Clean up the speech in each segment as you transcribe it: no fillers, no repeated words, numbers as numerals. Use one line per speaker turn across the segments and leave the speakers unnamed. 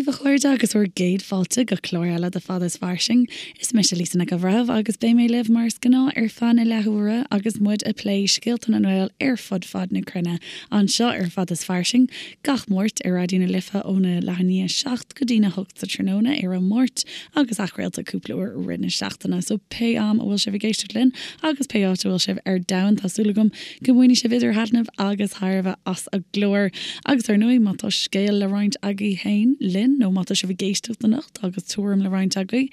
daoibh, a chairde, agus bhur gcéad fáilte go clár eile de Fada is Fairsing. Is mise Lisa Nic an Bhreithimh agus beidh mé libh mar is gnáth ar feadh na leathuaire agus muid ag plé scéalta na nGael ar fud fad na cruinne anseo ar Fada is Fairsing gach Máirt ar Raidió na Life óna leath i ndiaidh a 7 go dtína 8 sa tráthnóna ar an Máirt agus athchraolta cúpla uair i rith na seachtaine. So pé am a bhfuil sibh ag éisteacht linn agus pé áit a bhfuil sibh ar domhan tá súil agam Go mbainfidh sibh idir thaitneamh agus thairbhe as an gclár. Agus ar ndóigh, má tá scéal le roinnt agaibh féin linn, nó má tá sibh ag éisteacht anocht agus tuairim le roinnt agaibh,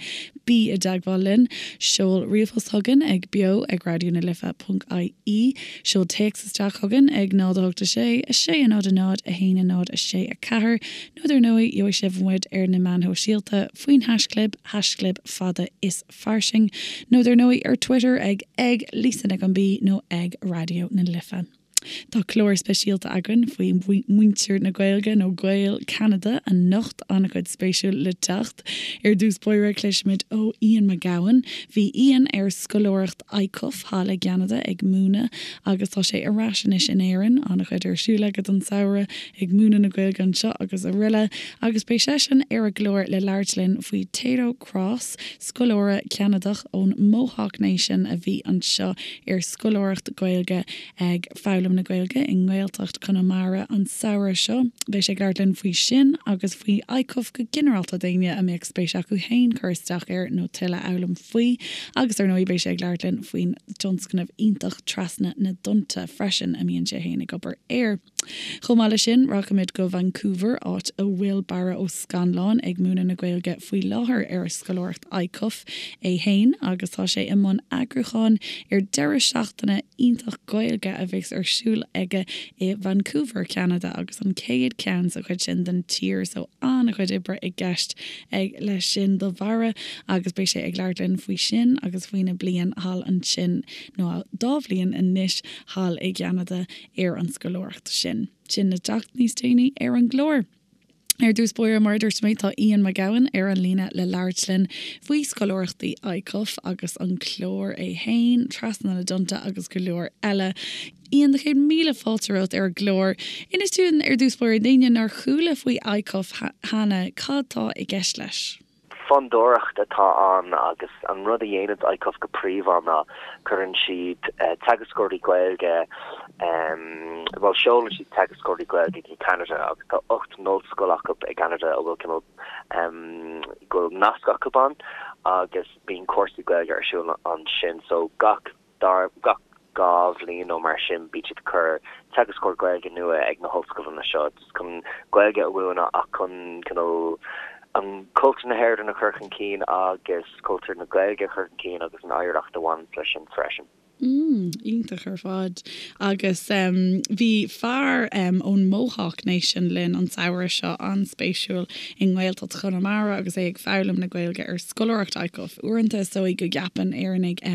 bí i dteagmháil linn. Seol ríomhphost chugainn ag beo ag raidió na life ponc ie, seol téacs isteach chugainn ag 0 8 6 6 0 0 1 0 6 4, nó dar ndóigh, gheobhaidh sibh muid ar na meáin shóisialta faoin haischlib, haischlib fada is. fairsing, nó dar ndóigh ar Twitter ag ag Lisa Nic an B nó ag Raidió na Life. Tá clár speisialta againn faoi mhuintir na Gaeilge nó Gaeil Cheanada anocht, an-chuid spéisiúil le teacht. Ar dtús báire cloisfimid ó Ian Mac Gabhann. Bhí Ian ar scoláireacht ICUF thall i gCeanada ag múineadh agus tá sé ar ais anois in Éirinn, an-chuid ar siúl aige don samhradh ag múineadh na Gaeilge anseo agus araile agus beidh seisean ar an gclár le labhairt linn faoi Tayto Cross, scoláire Ceanadach ón Mohawk Nation a bhí anseo ar scoláireacht Gaeilge ag foghlaim na Gaeilge i nGaeltacht Chonamara an samhradh seo. Beidh sé ag labhairt linn faoi sin agus faoi ICUF go ginearálta d'éinne a mbeadh spéis acu féin cur isteach air nó tuilleadh a fhoghlaim faoi. Agus ar ndóigh beidh sé ag labhairt linn faoin dtionscnamh iontach Trasna na dTonnta freisin a mbíonn sé féin ag obair air. Chomh maith leis sin, rachaimid go Vancouver, áit a bhfuil Barra Ó Scannláin ag múineadh na Gaeilge faoi láthair ar scoláireacht ICUF é fhéin agus tá sé i mbun eagrúcháin ar deireadh seachtaine iontach Gaeilge a bheas ar siúl aige i Vancouver, Ceanada agus an chéad cheann sa chuid sin den tír so an-chuid oibre i gceist ag leis sin do Bharra agus beidh sé ag labhairt linn faoi sin agus faoina bliain thall ansin nó dá bhliain anois thall i gCeanada. ar an scoláireacht sin. Sin le teacht níos déanaí ar an gclár. Ar dtús báire, mar a dúirt mé, tá Ian Mac Gabhann ar an líne le labhairt linn faoi scoláireachtaí ICUF agus an clár é fhéin, Trasna na dTonnta agus go leor eile. Ian, 100,000 fáilte romhat ar an gclár. Inis dúinn ar dtús báire, d'éinne nár chuala faoi ICUF cheana, cad tá i gceist leis?
Fondúireacht atá ann agus an rud a dhéanann ICUF go príomha ná cuireann siad teagascóirí Gaeilge, bhuel seolann siad teagascóirí Gaeilge go Ceanada agus tá 8 n-ollscoil acu i gCeanada a bhfuil cineál, go bhfuil nasc acu ann agus bíonn cúrsaí Gaeilge ar siúl ansin so gach dara, gach 2 bhliain nó mar sin, bíonn siad ag cur teagascóir Gaeilge nua ag na hollscoileanna seo, just chun Gaeilge a mhúineadh ach chun cineál an cultúr na hÉireann a chur chun cinn agus cultúr na Gaeilge a chur chun cinn agus an oidhreacht a bhaineanns leis sin freisin.
Mm, iontach ar fad. Agus bhí fear ón Mohawk Nation linn an samhradh seo, an-spéisiúil, i nGaeltacht Chonamara agus é ag foghlaim na Gaeilge ar scoláireacht ICUF. Uaireanta is dóigh go gceapann Éireannaigh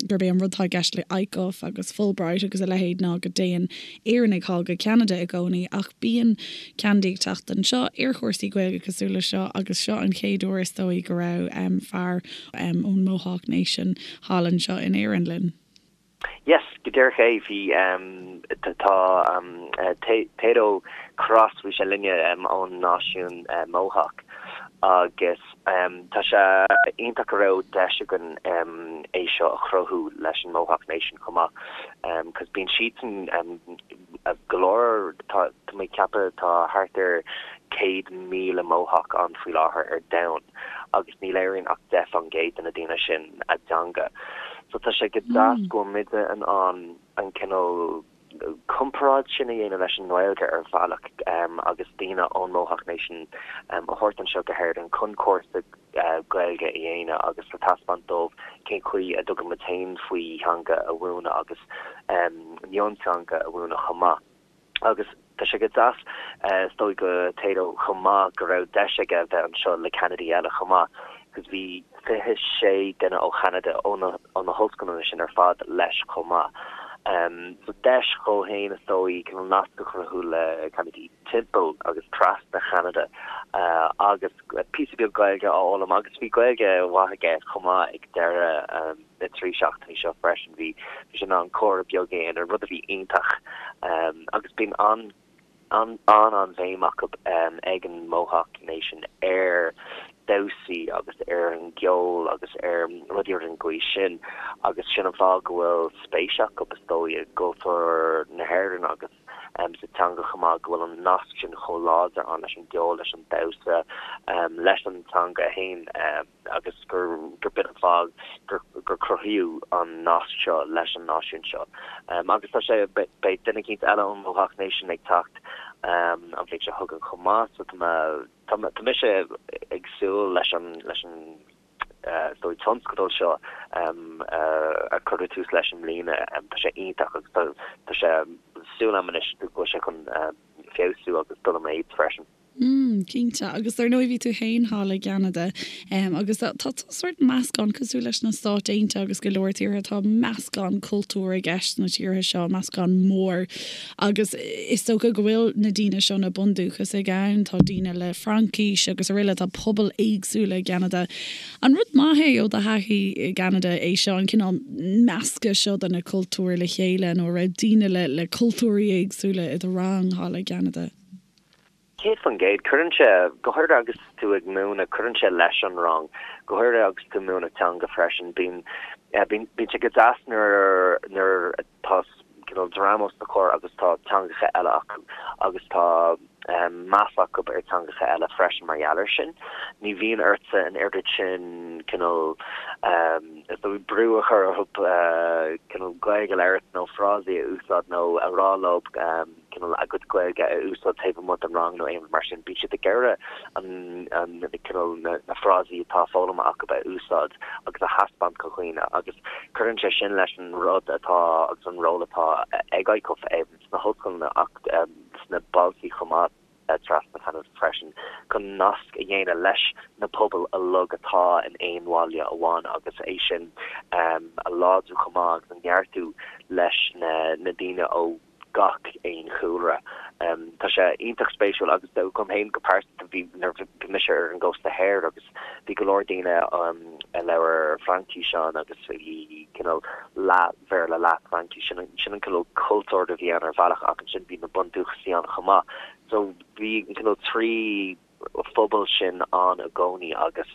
gurb é an rud atá i gceist le ICUF agus Fulbright agus a leithéid ná go dtéann Éireannaigh thall go Ceanada i gcónaí ach bíonn Ceanadaigh ag teacht anseo ar chúrsaí Gaeilge cosúil le seo agus seo an chéad uair is dóigh go raibh fear ón Mohawk Nation thall anseo in Éirinn linn.
Yes, go díreach é, bhí, tá Tayto Cross, bhí sé linne ón náisiún Mohawk agus tá sé iontach go raibh deis againn é seo a chruthú leis an Mohawk Nation chomh maith cos bíonn siadsan go leor, tá mé ag ceapadh tá thart ar 100,000 Mohawk ann faoi láthair ar domhan. agus ní labhraíonn ach 10% de na daoine sin a dteanga. So tá sé go deas go bhfuil muide in ann an cineál comparáid sin a dhéanamh leis an nGaeilge ar bhealach agus daoine ón Mohawk Nation a thabhairt anseo go hÉirinn chun cúrsa Gaeilge a dhéanamh agus le taispeáint dóibh cén chaoi a dtugann muid féin faoi theanga a mhúineadh agus mionteanga a mhúineadh chomh maith. Agus tá sé go deas, is dóigh do Tayto chomh maith go raibh deis aige bheith anseo le Ceanadaigh eile chomh maith, cos bhí 26 duine ó Cheanada, ó na, ó na hollscoileanna sin ar fad leis chomh maith. So deis dhó fhéin is dóigh cineál nasc a chruthú le Ceanadaigh timpeall agus trasna Cheanada agus píosa beag Gaeilge a fhoghlaim agus bhí Gaeilge mhaith aige chomh maith ag deireadh na dtrí seachtainí seo freisin. Bhí sé in ann comhrá beag a dhéanamh, rud a bhí iontach. Agus bíonn an. an-an-bhéim acu ag an Mohawk Nation ar damhsaí agus ar an gceol agus ar rudaí ar an gcaoi sin agus sin an fáth go bhfuil spéis acu is dóigh i gcultúr na hÉireann agus sa teanga chomh maith, go bhfuil an nasc sin chomh láidir ann leis an gceol, leis an damhsa, leis an teanga féin. agus gur b'in an fáth gur cruthaíodh an nasc seo leis an náisiún seo. Agus tá sé, beidh duine eicínt eile ón Mohawk Nation ag teacht an bhliain seo chugainn chomh maith, so tá mé, tá mise ag súil leis an, leis an is dóigh tionscadal seo a cuireadh tús leis i mbliana. Tá sé iontach agus tá, tá sé, súil agam anois go bhfuil sé chun feabhsú agus dul i méid freisin.
Mm, cinnte. Agus dar ndóigh bhí tú féin thall i gCeanada agus tá tá sórt meascán cosúil leis na Stáit Aontaithe agus go leor tíortha tá meascán cultúr i gceist sna tíortha seo, meascán mór. Agus is dócha go bhfuil na daoine seo, na bundúchasaigh ann, tá daoine le Fraincis agus araile, tá pobail éagsúla i gCeanada. An rud maith é ó do thaithí i gCeanada é seo, an cineál meascadh seo de na cultúir le chéile nó an raibh daoine le le cultúirí éagsúla i do rang thall i gCeanada?
100%. Cuireann sé, go háirithe agus tú ag múineadh, cuireann sé leis an rang, go háirithe agus tú ag múineadh teanga freisin. Bíonn, bíonn, bíonn sé go deas nuair, nuair atá cineál dream os do chomhair agus tá teangacha eile acu agus tá meas acu ar teangacha eile freisin mar gheall air sin. Ní bhíonn ortsa an oiread sin cineál, is dóigh, brú a chur orthu cineál Gaeilge a labhairt nó frásaí a úsáid nó a rá leo. cineál a gcuid Gaeilge a úsáid taobh amuigh den rang nó aon rud mar sin. Bíonn siad ag iarraidh an, an, cineál na, na frásaí atá foghlamtha acu a úsáid agus a thaispeáint do dhaoine agus cuireann sé sin leis an rud atá agus an ról atá ag ICUF sna hollscoileanna ach sna bailte chomh maith trasna Cheanada freisin chun nasc a dhéanamh leis na pobail uilig atá in aon bhaile amháin agus é sin a láidriú chomh maith agus a neartú leis na daoine ó gach aon chúlra. Tá sé iontach spéisiúil agus dom féin go pearsanta bhí nuair a bhí mise ar an gcósta thoir agus bhí go leor daoine a labhair Fraincis ann agus bhí cineál leath Bhéarla leath Fraincis sin sin an cineál cultúr a bhí ann ar bhealach ach ansin bhí na bundúchasaigh ann chomh maith. So bhí an cineál 3 phobal sin ann i gcónaí agus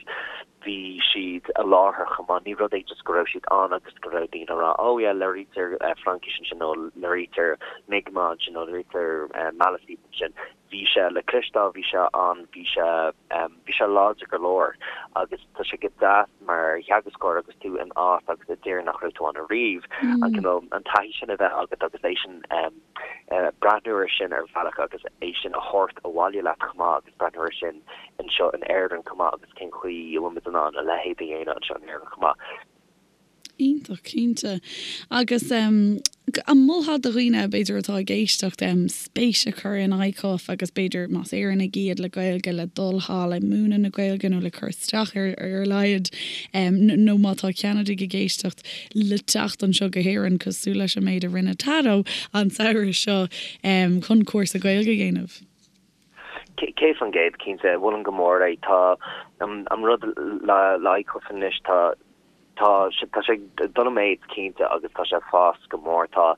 bhí siad i láthair chomh maith. Ní rud é just go raibh siad ann agus go raibh daoine ag rá oh yeah labhraítear Fraincis ansin nó labhraítear Mi'kmaq ansin nó labhraítear Maliseet ansin. Bhí sé le cloisteáil, bhí sé ann, bhí sé bhí sé láidir go leor agus tá sé go deas mar theagascóir agus tú in áit agus i dtír nach raibh tú ann ariamh an cineál an taithí sin a bheith agat agus é sin breathnú air sin ar bhealach agus é sin a thabhairt abhaile leat chomh maith agus breathnú air sin anseo in Éirinn chomh maith agus cén chaoi a bhfuil muid in ann a leithéid a dhéanamh anseo in Éirinn chomh maith.
Iontach, cinnte. Agus an molfá do dhaoine, b'fhéidir, atá ag éisteacht, spéis a chur in ICUF agus b'fhéidir, más Éireannaigh iad le Gaeilge, le dul thall ag múineadh na Gaeilge nó le cur isteach ar ar a laghad, nó má tá Ceanadaigh ag éisteacht, le teacht anseo go hÉirinn, cosúil leis an méid a rinne Tado an samhradh seo, chun cúrsa Gaeilge a dhéanamh.
100%, cinnte. Mholfainn go mór é. Tá an rud le ICUF anois, tá tá tá sé ag dul i méid, cinnte, agus tá sé ag fás go mór. Tá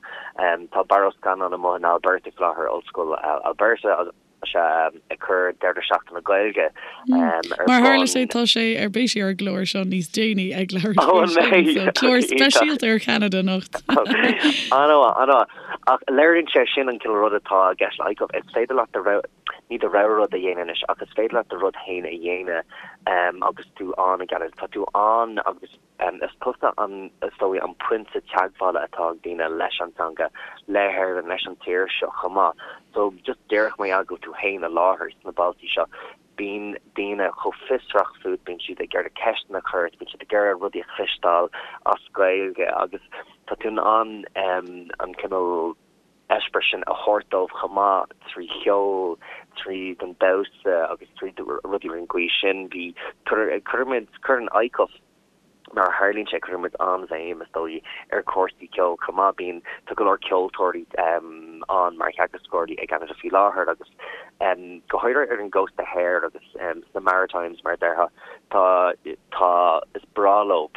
tá Barra Ó Scanláin amuigh in Alberta faoi láthair, Ollscoil Alberta, agus Tá sé ag cur deireadh seachtaine Gaeilge
ar bun. Mar tharla sé, tá sé ar beidh sé ar an gclár seo níos déanaí ag labhairt faoi sin, so clár speisialta ar Cheanada anocht.
An-mhaith, an-mhaith. Ach léiríonn sé sin an cineál rud atá i gceist le ICUF. Is féidir leat do rogha, ní do rogha rud a dhéanamh anois, ach is féidir leat do rud féin a dhéanamh agus tú ann i gCeanada. Tá tú ann agus. Is tusa an, is dóigh, an pointe teagmhála atá ag daoine leis an teanga, le hÉirinn, leis an tír seo chomh maith. So, just díreach mar gheall go bhfuil tú féin i láthair sna bailtí seo, bíonn daoine chomh fiosrach fút, bíonn siad ag iarraidh ceisteanna a chur ort, bíonn siad ag iarraidh rudaí a chloisteáil as Gaeilge agus tá tú in ann an cineál eispéireas sin a thabhairt dóibh chomh maith trí cheol, tríd an damhsa agus trí rudaí ar an gcaoi sin. Bhí, cuirimid, cuireann ICUF, mar a tharlaíonn sé, cuireann muid an-bhéim, is dóigh, ar chúrsaí ceoil chomh maith. Bíonn, tá go leor ceoltóirí ann mar theagascóirí i gCeanada faoi láthair agus go háirithe ar an gcósta thoir agus sna Maritimes, mar a déarfá, tá, tá, is breá leo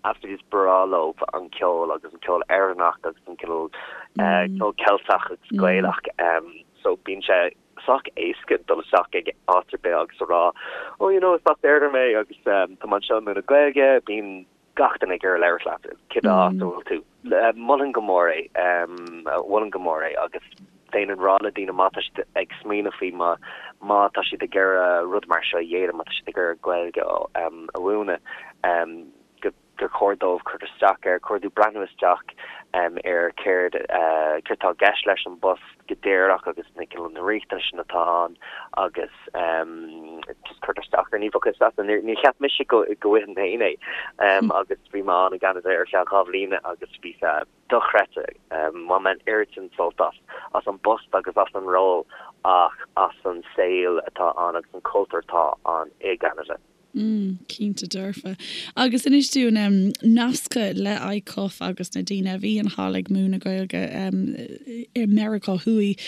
Absolutely is breá leo an ceol agus an ceol Éireannach agus an cineál ceol Ceilteach agus Gaelach. so bíonn sé sách éasca dul isteach ag áit ar bith agus a rá oh you know is as Éirinn mé agus tá mé anseo ag múineadh Gaeilge, bíonn gach duine ag iarraidh labhairt leat cibé áit a bhfuil tú. Mholfainn go mór é, mholfainn go mór é agus bheinn ag rá le daoine má tá siad ag smaoineamh faoi má má tá siad ag iarraidh rud mar seo a dhéanamh, má tá siad ag iarraidh Gaeilge a mhúineadh, go gur chóir dóibh cur isteach air, chóir dóibh breathnú isteach ar céard céard atá i gceist leis an bpost go díreach agus na na riachtanais atá ann agus just cur isteach air. Ní bheadh fhios agat, níor cheap mise go go bhfaighinn féin é agus bhí mé ann i gCeanada ar feadh 2 bhliana agus bhí sé dochreidte. Bhain mé an oiread sin sult as as an bpost agus as an ról ach as an saol atá ann agus an cultúr atá ann i gCeanada.
Mm, cinnte dearfa. Agus inis dúinn, em, nasctha le ICUF agus na daoine a bhíonn thall ag múineadh Gaeilge, em, i Meiriceá Thuaidh,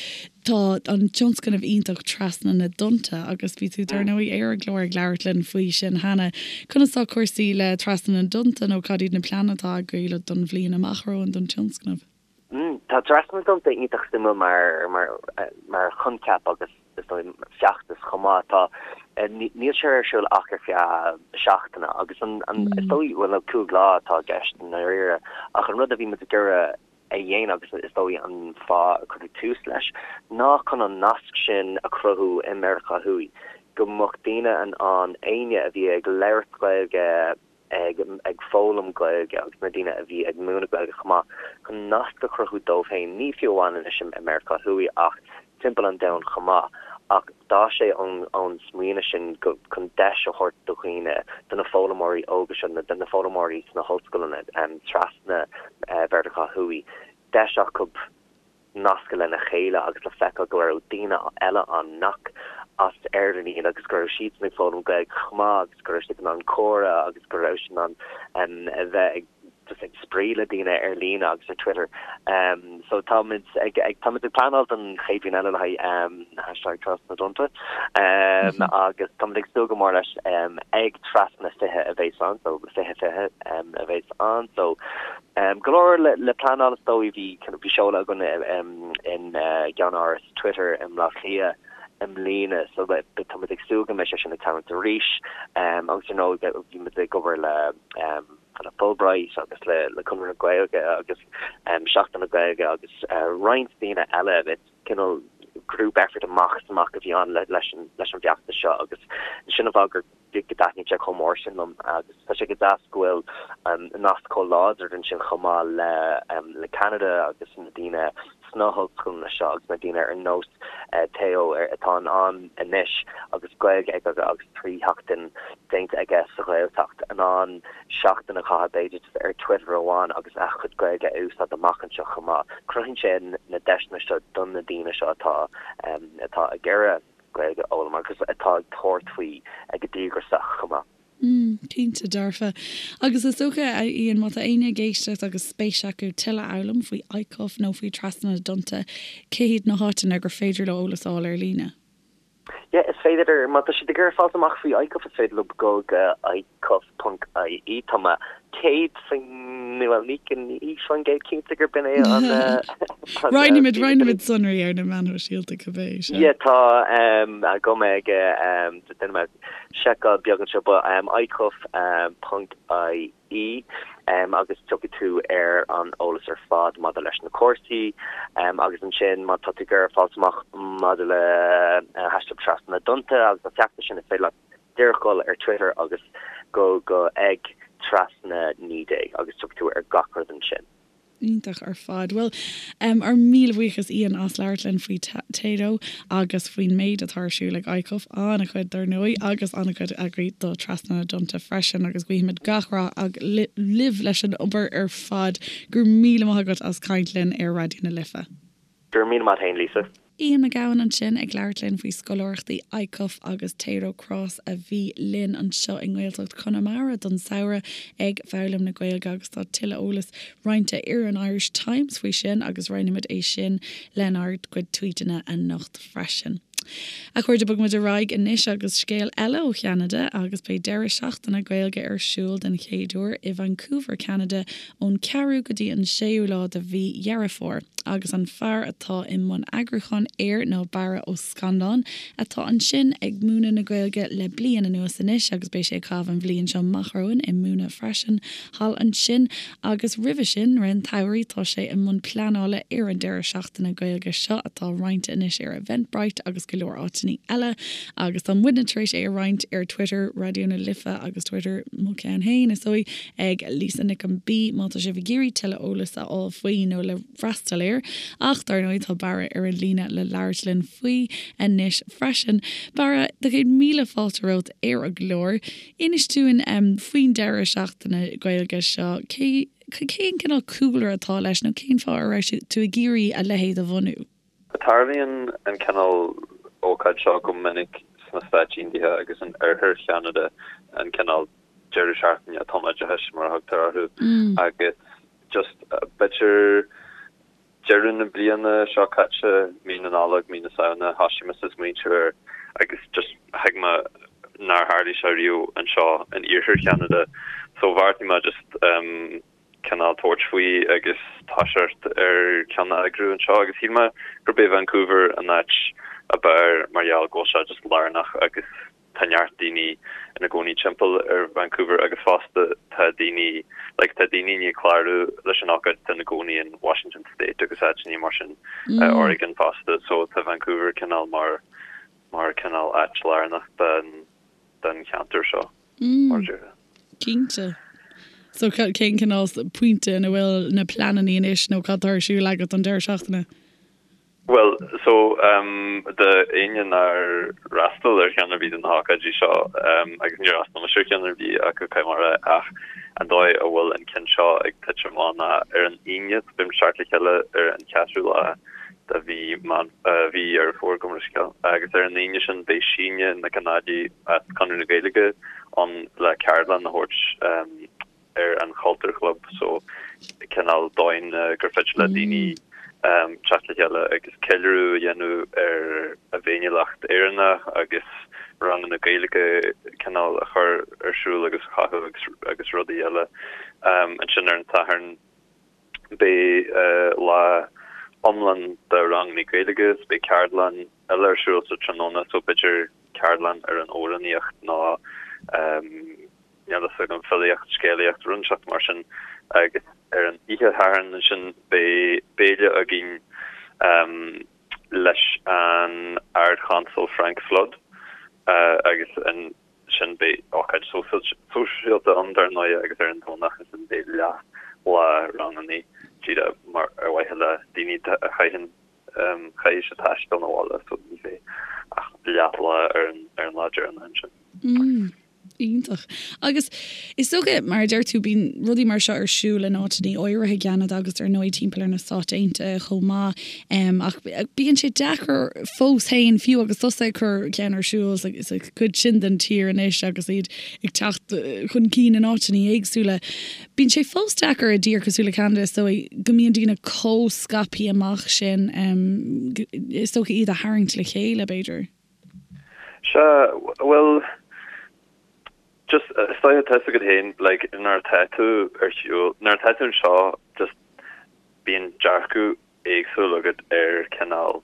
tá an tionscnamh iontach Trasna na dTonnta agus bhí tú dar ndóigh ar an gclár ag labhairt linn faoi sin cheana. Conas tá cúrsaí le Trasna na dTonnta nó cad iad na pleananna atá agaibh don bhliain amach romhainn don tionscnamh?
Tá Trasna na dTonnta iontach suimiúil mar mar choincheap agus is dóigh feachtas chomh maith. Tá níl sé ar siúl ach ar feadh seachtaine agus an is dóigh bhuel nó 5 lá atá i gceist i ndáiríre ach an rud a bhí muid ag iarraidh a dhéanamh agus is dóigh an fáth a cuireadh tús leis ná chun an nasc sin a chruthú i Meiriceá Thuaidh go mbeadh daoine in ann éinne a bhí ag labhairt Gaeilge ag ag foghlaim Gaeilge agus na daoine a bhí ag múineadh Gaeilge chomh maith, chun nasc a chruthú dóibh féin, ní fiú amháin anois i Meiriceá Thuaidh ach timpeall an domhain chomh maith. Ach d'fhás sé ón ón smaoineamh sin go chun deis a thabhairt do dhaoine, do na foghlaimeoirí óga seo, do na foghlaimeoirí sna hollscoileanna trasna Mheiriceá Thuaidh, deis acu nascadh lena chéile agus le feiceáil go raibh daoine eile ann nach as Éirinn iad agus go raibh siadsan ag foghlaim Gaeilge chomh maith agus go raibh siad in ann comhrá agus go raibh siad in ann a bheith ag just ag spraoi le daoine ar líne agus ar Twitter. So táimid ag ag táimid ag pleanáil don chéad bhliain eile le haghaidh hashtag Trasna na dTonnta agus táimid ag súil go mór leis ag Trasna 20 a bheas ann so 20 20 a bheas ann so Go leor le pleanáil is dóigh. Bhí bhí seoladh againn in gceannáras Twitter i mBleá Cliath i mbliana so tá muid ag súil go mbeidh sé sin ag tarlúint arís. Agus ar ndóigh bhí muid ag obair le le Fulbright agus le le Conradh na Gaeilge agus Seachtain na Gaeilge agus roinnt daoine eile. Cineál group effort amach is amach a bhí ann leis an leis an bhfeachtas seo agus sin an fáth gur go dtaitníonn sé chomh mór sin liom agus tá sé go deas go bhfuil nasc chomh láidir ansin chomh maith le le Ceanada agus na daoine sna hollscoileanna seo agus na daoine ar nós Teo atá in ann anois agus Gaeilge aige agus 3 sheachtain déanta aige sa Ghaeltacht in ann seachtain a chaitheamh b'fhéidir just ar Twitter amháin agus a chuid Gaeilge a úsáid amach anseo chomh maith. Cruthaíonn sé na deiseanna seo do na daoine seo atá atá ag iarraidh Gaeilge a fhoghlaim agus atá ag tabhairt faoi go díograiseach chomh maith.
Mm, cinnte dearfa. Agus is dócha, a Ian, má tá éinne ag éisteacht agus spéis acu tuilleadh a fhoghlaim faoi ICUF nó faoi Trasna na dTonnta, cé hiad na háiteanna gur féidir leo eolas a fháil ar líne?
Yeah, is féidir, má tá siad ag iarraidh fáilt amach faoi ICUF, is féidir leo dul go icuf.ie. Tá mé 100%, bhuel, ní 100% cinnte gurb in é an.
Roinnfimid, roinnfimid sonraí ar na meáin shóisialta cibé,
sea. Yeah, tá agam ag, déanfaidh mé seiceáil beag anseo, but icuf.ie agus tiocfaidh tú ar an eolas ar fad maidir leis na cúrsaí agus ansin má tá tú ag iarraidh fáilt amach maidir le hashtag Trasna na dTonnta agus an feachtas sin is féidir leat díreach dul ar Twitter agus go go ag trasna 19 agus tiocfaidh tú ar gach rud ansin.
Iontach ar fad. Bhuel, ár míle buíochas Ian as labhairt linn faoi Tayto agus faoin méid atá ar siúl ag ICUF, an-chuid dar ndóigh, agus an-chuid agaibh do Trasna na dTonnta freisin agus guímid gach rath libh leis an obair ar fad. Go raibh míle maith agat as caint linn ar Raidió na Life.
Go raibh míle maith agat féin, Lisa.
Ian McGowan ansin ag labhairt linn faoi scoláireachtaí ICUF agus Tayto Cross a bhí linn anseo i nGaeltacht Chonamara don samhradh ag foghlaim na Gaeilge agus tá tuilleadh eolais roinnte ar an Irish Times faoi sin agus roinnfimid é sin lenár gcuid tweeteanna anocht freisin. A chairde, bogfaidh muid ar aghaidh anois agus scéal eile ó Cheanada agus beidh deireadh seachtaine Gaeilge ar siúl den chéad uair i Vancouver, Ceanada ón ceathrú go dtí an séú lá de mhí Dheireadh Fómhair agus an fear atá i mbun eagrúcháin air ná Barra Ó Scanláin atá ansin ag múineadh na Gaeilge le bliain anuas anois agus beidh sé ag caitheamh an bhliain seo amach romhainn ag múineadh freisin thall ansin Agus roimhe sin, rith an tsamhraidh, tá sé i mbun pleanála ar an deireadh seachtaine Gaeilge seo atá roinnte anois ar Eventbrite agus go leor áiteanna eile. Agus tá muidne tar éis é a roinnt ar Twitter Raidió na Life agus Twitter mo cheann féin, is dóigh, ag Lisa Nic an B má tá sibh ag iarraidh tuilleadh eolas a fháil faoi nó le freastal air. Ach dar ndóigh tá Barra ar an líne le labhairt linn faoi anois freisin. Barra, do chéad míle fáilte romhat ar an gclár. Inis dúinn faoin deireadh seachtaine Gaeilge seo. Cé, cén cineál cúlra atá leis nó cén fáth a raibh tú ag iarraidh a leithéid a bhunú?
Tarlaíonn an cineál ócáid seo go minic sna Stáit Aontaithe agus in oirthear Cheanada, an cineál deireadh seachtaine tumoideachais mar a thugtar orthu, agus just b'fhéidir Deireadh na bliana seo caite, mí na Nollag, mí na Samhna, thoisigh mise ag smaointiú air agus just thuig mé nár tharlaigh sé riamh anseo in iarthar Cheanada so bheartaigh mé just cineál tabhairt faoi agus toiseacht ar ceann a eagrú anseo agus shíl mé gurb é Vancouver an áit ab fhearr mar gheall go bhfuil sé just lárnach agus Tá neart daoine ina gcónaí timpeall ar Vancouver agus fosta tá daoine, like tá daoine i ndiaidh clárú leis an ócáid atá ina gcónaí in Washington State agus áiteanna mar sin, Oregon fosta, so tá Vancouver cineál mar, mar cineál áit lárnach den, den cheantar seo, mar a déarfá.
Cinnte. So cén cineál pointe ina bhfuil na pleananna anois nó cad tá ar siúl agat don deireadh seachtaine?
Bhuel, so, do éinne nár fhreastail ar cheann ar bith de na hócáidí seo, agus níor fhreastail mise ar cheann ar bith acu, caithfidh mé a rá, ach an dóigh a bhfuil an ceann seo ag titim amach ná ar an Aoine, so beidh muid ag teacht le chéile ar an cheathrú lá de mhí Meán, mhí Dheireadh Fómhair, gabh mo leithscéal, agus ar an Aoine sin beidh Síne Nic an Ailí as Conradh na Gaeilge ann le ceardlann a thabhairt. ar an Chultúr Chlub so cineál dóigh gur féidir le daoine teacht le chéile agus ceiliúradh a dhéanamh ar a bhféiniúlacht Éireannach agus ranganna Gaeilge cineál a chur ar siúl agus a chothú agus agus rudaí eile. Ansin ar an Satharn beidh lá iomlán de ranganna Gaeilge so beidh ceardlann eile ar siúl sa tráthnóna so b'fhéidir ceardlann ar an amhránaíocht nó níl a fhios agam, filíocht, scéalaíocht, rud inteacht mar sin agus ar an oíche Shathairn ansin beidh béile againn leis an Ard-Chonsal Frank Flood agus ansin beidh ócáid sóisialta ann dar ndóigh agus ar an Domhnach ansin beidh leath lá rangannaí díreach mar ar mhaithe le daoine a chaitheann caithfidh siad taisteal 'na bhaile so ní bheidh ach leath lá ar an lá deireanach
ansin. Iontach. Agus is dócha, mar a deir tú, bíonn rudaí mar seo ar siúl in áiteanna áirithe i gCeanada agus ar ndóigh timpeall ar na Stáit Aontaithe chomh maith. Ach bíonn sé deacair fós féin, fiú agus tusa ag cur ceann ar siúl sa chuid sin den tír anois agus iad ag teacht chun cinn in áiteanna éagsúla, bíonn sé fós deacair i dtír cosúil le Ceanada, is dóigh, go mbíonn daoine chomh scaipthe amach sin, is dócha iad a tharraingt le chéile, b'fhéidir.
Sea, bhuel, just, is dóiche, tá fhios agat féin, like, nuair atá tú ar shiúl, nuair atá tú anseo, just, bíonn dearcadh éagsúil agat ar cineál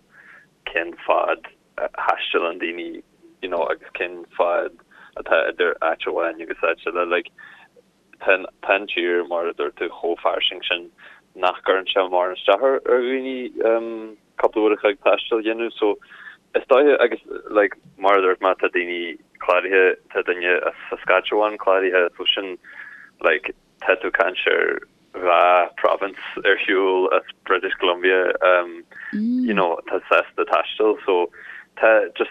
cén fad a thaistealann daoine, you know, agus cén fad atá idir áit amháin agus áit eile, like, Tá an tír, mar a dúirt tú, chomh fairsing sin nach gcuireann sé mórán isteach ar dhaoine cúpla uair a chloig taistil a dhéanamh. So, is dóiche, agus like, mar a dúirt mé, tá daoine cláraithe, tá duine as Saskatchewan cláraithe, so sin like, tá tú ag caint ar dhá province ar shiúl as British Columbia, um, you know, tá sásta taisteal, so tá just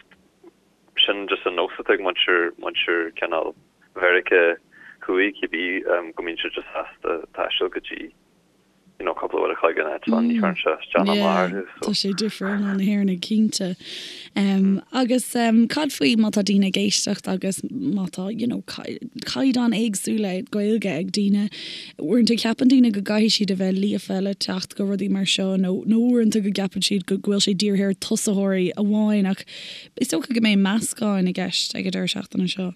Sin just an nós atá ag muintir, muintir cineál Mheiriceá Thuaidh cibé, go mbíonn siad just sásta taisteal go dtí. you know, cúpla uair a chloig an eitleán, ní chuireann sé isteach ná amach orthu,
so. Tá sé difriúil ná na hÉireannaigh, cinnte. Agus cad faoi má tá daoine ag éisteacht agus má tá, you know, caighdeán éagsúla Gaeilge ag daoine, uaireanta ceapann daoine go gcaithfidh siad a bheith líofa le teacht go rudaí mar seo nó nó uaireanta go gceapann siad go bhfuil sé dírithe ar tosaitheoirí amháin ach is dócha go mbeidh meascán i gceist ag an deireadh seachtaine seo.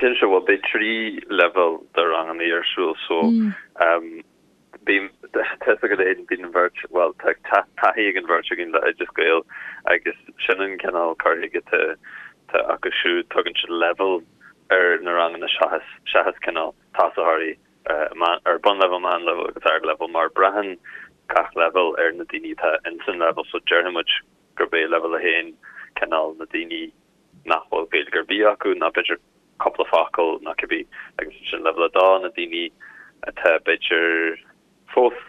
Cinnte, bhuel beidh 3 leibhéal de ranganna ar siúl so bím, tá fhios agat féin, bíonn an bheirt, bhuel tá taithí ag an bheirt againn le Oideas Gael agus sin an cineál cur chuige atá acu siúd, tugann siad leibhéal ar na ranganna seachas, seachas cineál tosaitheoirí ar bunleibhéal, meánleibhéal agus ardleibhéal mar braitheann gach leibhéal ar na daoine atá ins an leibhéal so déarfaidh muid gurb é leibhéal 1 cineál na daoine nach bhfuil Gaeilge ar bith acu ná b'fhéidir cúpla focal nó cibé agus ansin leibhéal 2 na daoine atá b'fhéidir fós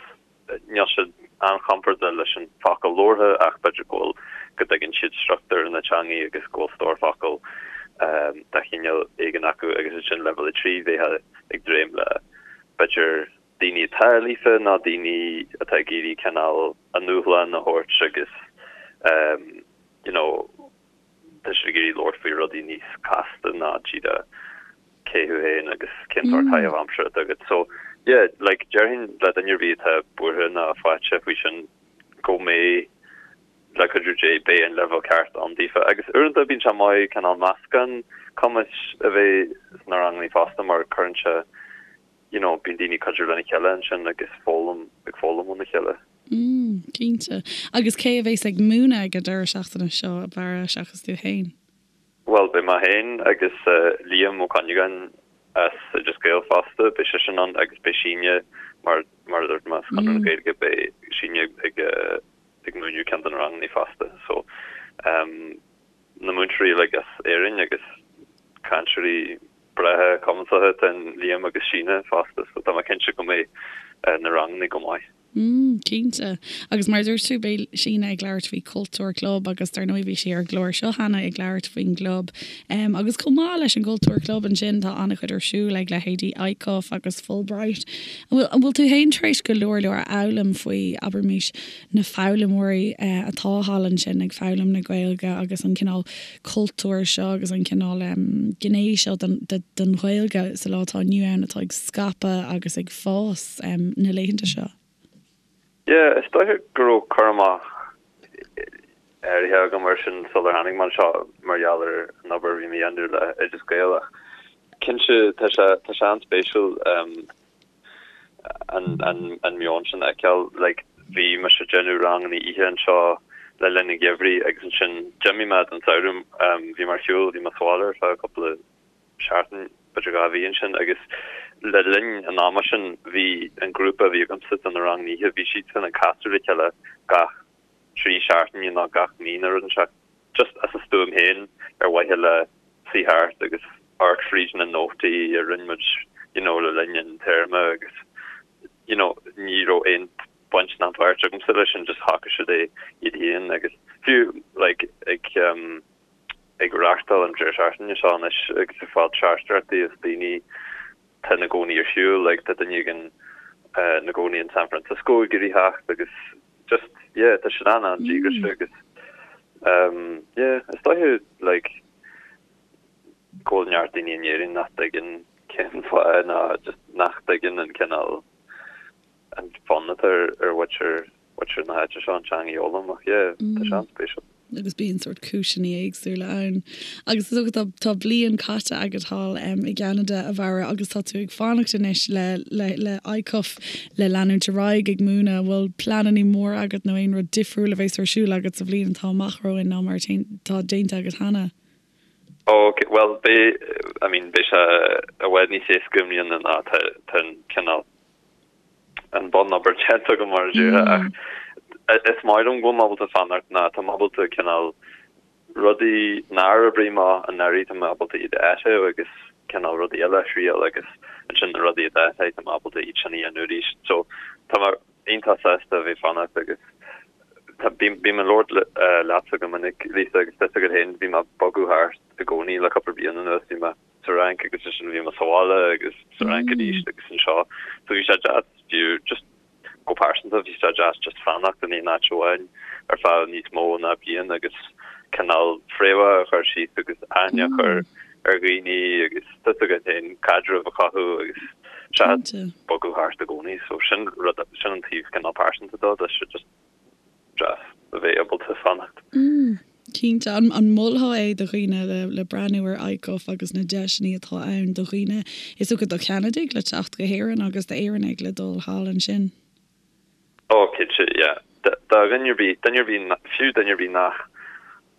níl siad an-chompordach leis an focal labhartha ach b'fhéidir go bhfuil go dtuigeann siad struchtúr na teangaí agus go bhfuil stór focal de chineál éigin acu agus ansin leibhéal 3 bheifeá ag dréim le b'fhéidir daoine atá líofa nó daoine atá ag iarraidh cineál a ndúshlán a thabhairt agus you know tá siad ag iarraidh labhairt faoi rudaí níos casta ná díreach cé thú féin agus cén sórt caitheamh aimsire atá agat. So, yeah, like, déarfainn le duine ar bith atá buartha ná faiteach faoi sin go mbeidh, le cuidiú Dé, beidh an leibhéal ceart ann daofa. Agus uaireanta bíonn sé maith cineál meascán cumais a bheith sna ranganna fosta mar cuireann sé, you know, bíonn daoine ag cuidiú lena chéile ansin agus foghlaim, ag foghlaim óna chéile.
Mm, cinnte. Agus cé a bhéas ag múineadh ag an deireadh seachtaine seo, a Bharra, seachas tú fhéin?
Bhuel, beidh mé féin agus Liam Ó Cuinneagáin as Oideas Gael fosta, beidh seisean ann agus beidh Síne, mar mar a dúirt mé, as Conradh na Gaeilge, beidh Síne ag ag múineadh ceann de na ranganna fosta. So, um, na múinteoirí uilig as Éirinn agus cainteoirí breátha cumasacha atá in Liam agus Síne fosta, so tá mé cinnte go mbeidh na ranganna go maith.
Mm, cinnte. Agus mar a dúirt tú, beidh Síne ag labhairt faoi Cultúr Club agus dar ndóigh bhí sí ar an gclár seo cheana ag labhairt faoin gclub. Um, agus chomh maith leis an gCultúr Club ansin tá an-chuid ar siúl ag leithéidí ICUF agus Fulbright. An bhfuil, an bhfuil tú fhéin tar éis go leor leor a fhoghlaim faoi, abraimis, na foghlaimeoirí atá thall ansin ag foghlaim na Gaeilge agus an cineál cultúir seo agus an cineál gné seo den Ghaeilge sa lá atá inniu ann atá ag scaipeadh agus ag fás na laethanta seo?
Yeah, is dóiche go raibh cur amach áirithe agam air sin sular tháinig mé anseo mar gheall ar an obair a bhí mé a dhéanamh le Oideas Gael ach cinnte tá sé tá sé an-spéisiúil an an an meon sin a fheiceáil. Like bhí mise ag déanamh ranganna oíche anseo le linn an gheimhridh agus ansin d'imigh mé don samhradh bhí mé ar shiúl, bhí mé sa bhaile ar feadh cúpla seachtain, b'fhéidir 2 mhí ansin agus le linn an ama sin bhí an grúpa a bhí agamsa do na ranganna oíche, bhí siadsan ag casadh le chéile gach 3 seachtaine nó gach mí nó rud inteacht just as a stuaim féin ar mhaithe le suí thart agus amharc fríd na nótaí a rinne muid you know le linn an téarma agus you know ní raibh aon baint ná páirt agamsa leis sin just shocraigh siad é iad féin agus fiú like ag um, ag reáchtáil an deireadh seachtaine seo anois agus ag fáil teachtaireachtaí as daoine atá ina gcónaí ar shiúl, like tá duine éigin ina gcónaí in San Francisco ag iarraidh theacht agus just yeah tá siad an-an-díograiseach agus um yeah is dóiche like go bhfuil neart daoine in Éirinn nach dtuigeann cén fáth ná just nach dtuigeann an cineál an fonn atá ar ar mhuintir mhuintir na háite seo an teanga a fhoghlaim ach yeah tá sé an-spéisiúil.
agus bíonn sórt cúiseanna éagsúla ann. Agus is dócha tá tá bliain caite agat thall i gCeanada, a Bharra, agus tá tú ag fanacht anois le le le ICUF le leanúint ar aghaidh ag múineadh. An bhfuil pleananna móra agat nó aon rud difriúil a bheas ar siúl agat sa bhliain atá amach romhainn ná mar atá déanta agat cheana?
Ok, bhuel beidh, I mean beidh sé i bhfad níos éasca i mbliana ná tá tá an cineál an bunobair déanta agam mar a déarfá ach is maith liom go bhfuil mé ábalta fanacht ná tá mé ábalta cineál rudaí nár oibrigh amach anuraidh tá mé ábalta iad a áiteamh agus cineál rudaí eile a thriail agus ansin na rudaí a d'oibrigh tá mé ábalta iad sin a dhéanamh arís. So tá mé iontach sásta a bheith fanacht agus tá bím ag labhairt leatsa go minic Lisa agus tá a fhios agat féin bhí mé ag bogadh thart i gcónaí le cúpla bliain anuas bhí mé sa Fhrainc agus ansin bhí mé sa bhaile agus sa Fhrainc arís agus anseo. So bhí sé deas fiú just Go pearsanta, bhí sé deas just fanacht in aon áit amháin ar feadh níos mó ná bliain agus cineál fréamhacha a chur síos agus aithne a chur ar dhaoine agus tá 'fhios agat féin caidreamh a chothú agus seachas bogadh thart i gcónaí. So sin rud, sin an taobh cineál pearsanta dó, tá sé just deas a bheith ábalta fanacht.
Cinnte. An molfá é do dhaoine le breathnú ar ICUF agus na deiseanna atá ann do dhaoine, is dócha do Cheanadaigh le teacht go hÉirinn agus d'Éireannaigh le dul thall ansin?
Ó, cinnte, yeah. Do dhuine ar bith, duine ar bith, fiú duine ar bith nach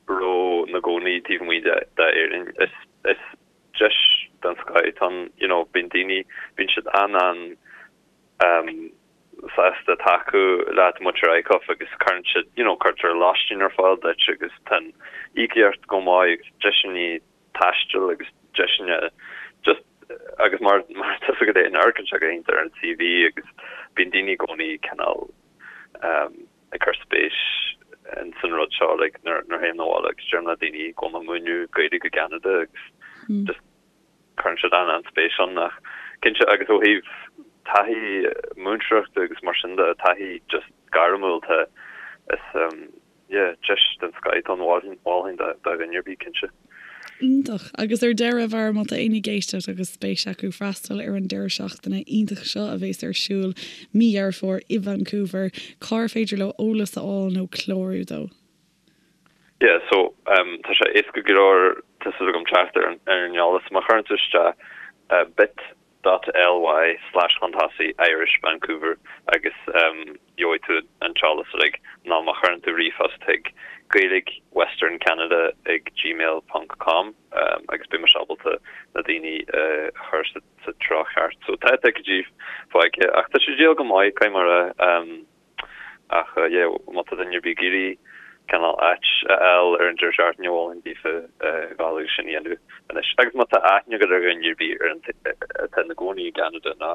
raibh ina gcónaí taobh amuigh d'Éirinn, is, is deis den scoth atá ann, you know, bíonn daoine, bíonn siad an-an, um, sásta tacú leat muintir ICUF agus cuireann siad, you know, cuirtear lóistín ar fáil duit agus tá an íocaíocht go maith agus deiseanna taistil agus deiseanna just agus mar mar tá 'fhios agat féin amharcann sé go hiontach ar an CV agus bíonn daoine i gcónaí cineál um, ag cur spéis in san rud seo like nuair nuair théim abhaile agus deirim le daoine go bhfuil mé ag múineadh Gaeilge i gCeanada agus just Cuireann siad an-an-spéis ann ach cinnte agus ó thaobh taithí múinteoireachta agus mar sin de, taithí just gairmiúil tá is yeah deis den scoth atá ann mholfainn do dhuine ar bith cinnte.
Iontach. Agus ar deireadh, a Bharra, má tá éinne ag éisteacht agus spéis acu freastal ar an deireadh seachtaine iontach seo a bhéas ar siúl mí Dheireadh Fómhair i Vancouver, cár féidir leo eolas a fháil nó clárú dó?
Yeah, so um tá sé éasca go leor tá 'fhios agam teacht ar an ar an eolas. Má chuireann tú isteach uh bit dot ly slash chun tosaigh Irish Vancouver agus um gheobhaidh tú an t-eolas uilig nó má chuireann tú ríomhphost chuig Gaeilge Western Canada ag gmail ponc com um agus beidh mise ábalta na daoine uh a chur sa sa treo cheart. So tá ticéidí fágtha ach tá sé ag díol go maith caithfidh mé a rá um Ach yeah, má tá duine ar bith ag iarraidh cineál áit a fháil ar an deireadh seachtaine, mholfainn daofa dhul agus sin a dhéanamh anois. Agus má tá aithne agat ar dhuine ar bith ar an atá ina gcónaí i gCeanada nó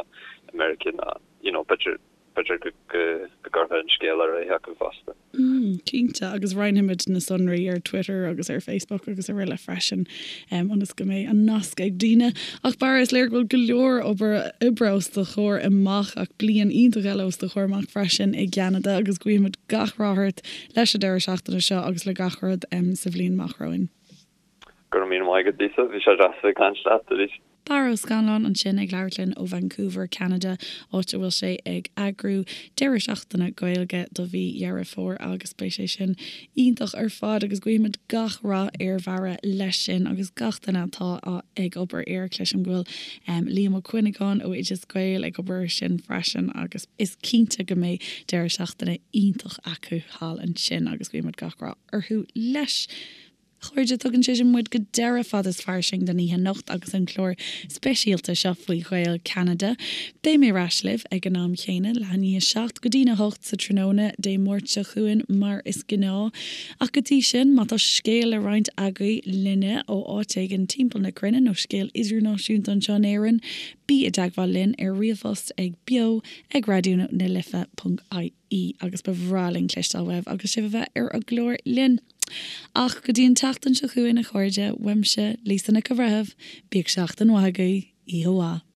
i Meiriceá nó you know b'fhéidir b'fhéidir go go go gcuirfeá an scéal ar aghaidh acu fosta.
Mm, cinnte, agus roinnfimid na sonraí ar Twitter agus ar Facebook agus araile freisin, ionas go mbeidh an nasc ag daoine. Ach Barra, is léir go bhfuil go leor obair oibre os do chomhair amach, ach bliain iontach eile os do chomhair amach freisin i gCeanada, agus guímid gach rath ort leis an deireadh seachtaine seo agus le gach rud sa bhliain amach romhainn.
Go raibh míle maith agat, Lisa. Bhí sé deas a bheith ag caint leat arís.
Barra Ó Scannláin ansin ag labhairt linn ó Vancouver, Ceanada, áit a bhfuil sé ag eagrú deireadh seachtaine Gaeilge do mhí Dheireadh Fómhair agus beidh sé sin iontach ar fad agus guímid gach rath ar Bharra leis sin agus gach duine atá ag obair air. Cloisim go bhfuil Liam Ó Cuinneagáin ó Oideas Gael ag obair air sin freisin agus is cinnte go mbeidh deireadh seachtaine iontach acu thall ansin agus guímid gach rath orthu leis. A chairde, tugann sé sin muid go deireadh Fad is Fairsing don oíche anocht agus an clár speisialta seo faoi Ghaeil Cheanada. Beidh mé ar ais libh ag an am chéanna, leath i ndiaidh a 7 go dtína 8 sa tráthnóna Dé Máirt seo chugainn mar is gnáth. Ach go dtí sin, má tá scéal le roinnt agaibh linne ó áit éigin timpeall na cruinne nó scéal idirnáisiúnta anseo in Éirinn, bí i dteagmháil linn ar ríomhphost ag beo ag raidió na life ponc ie agus ba bhreá linn cloisteáil uaibh agus sibh a bheith ar an gclár linn. Ach go dtí an tseachtain seo chugainn a chairde, uaimse, Lisa Nic an Bhreithimh, bíodh seachtain mhaith agaibh, oíche mhaith.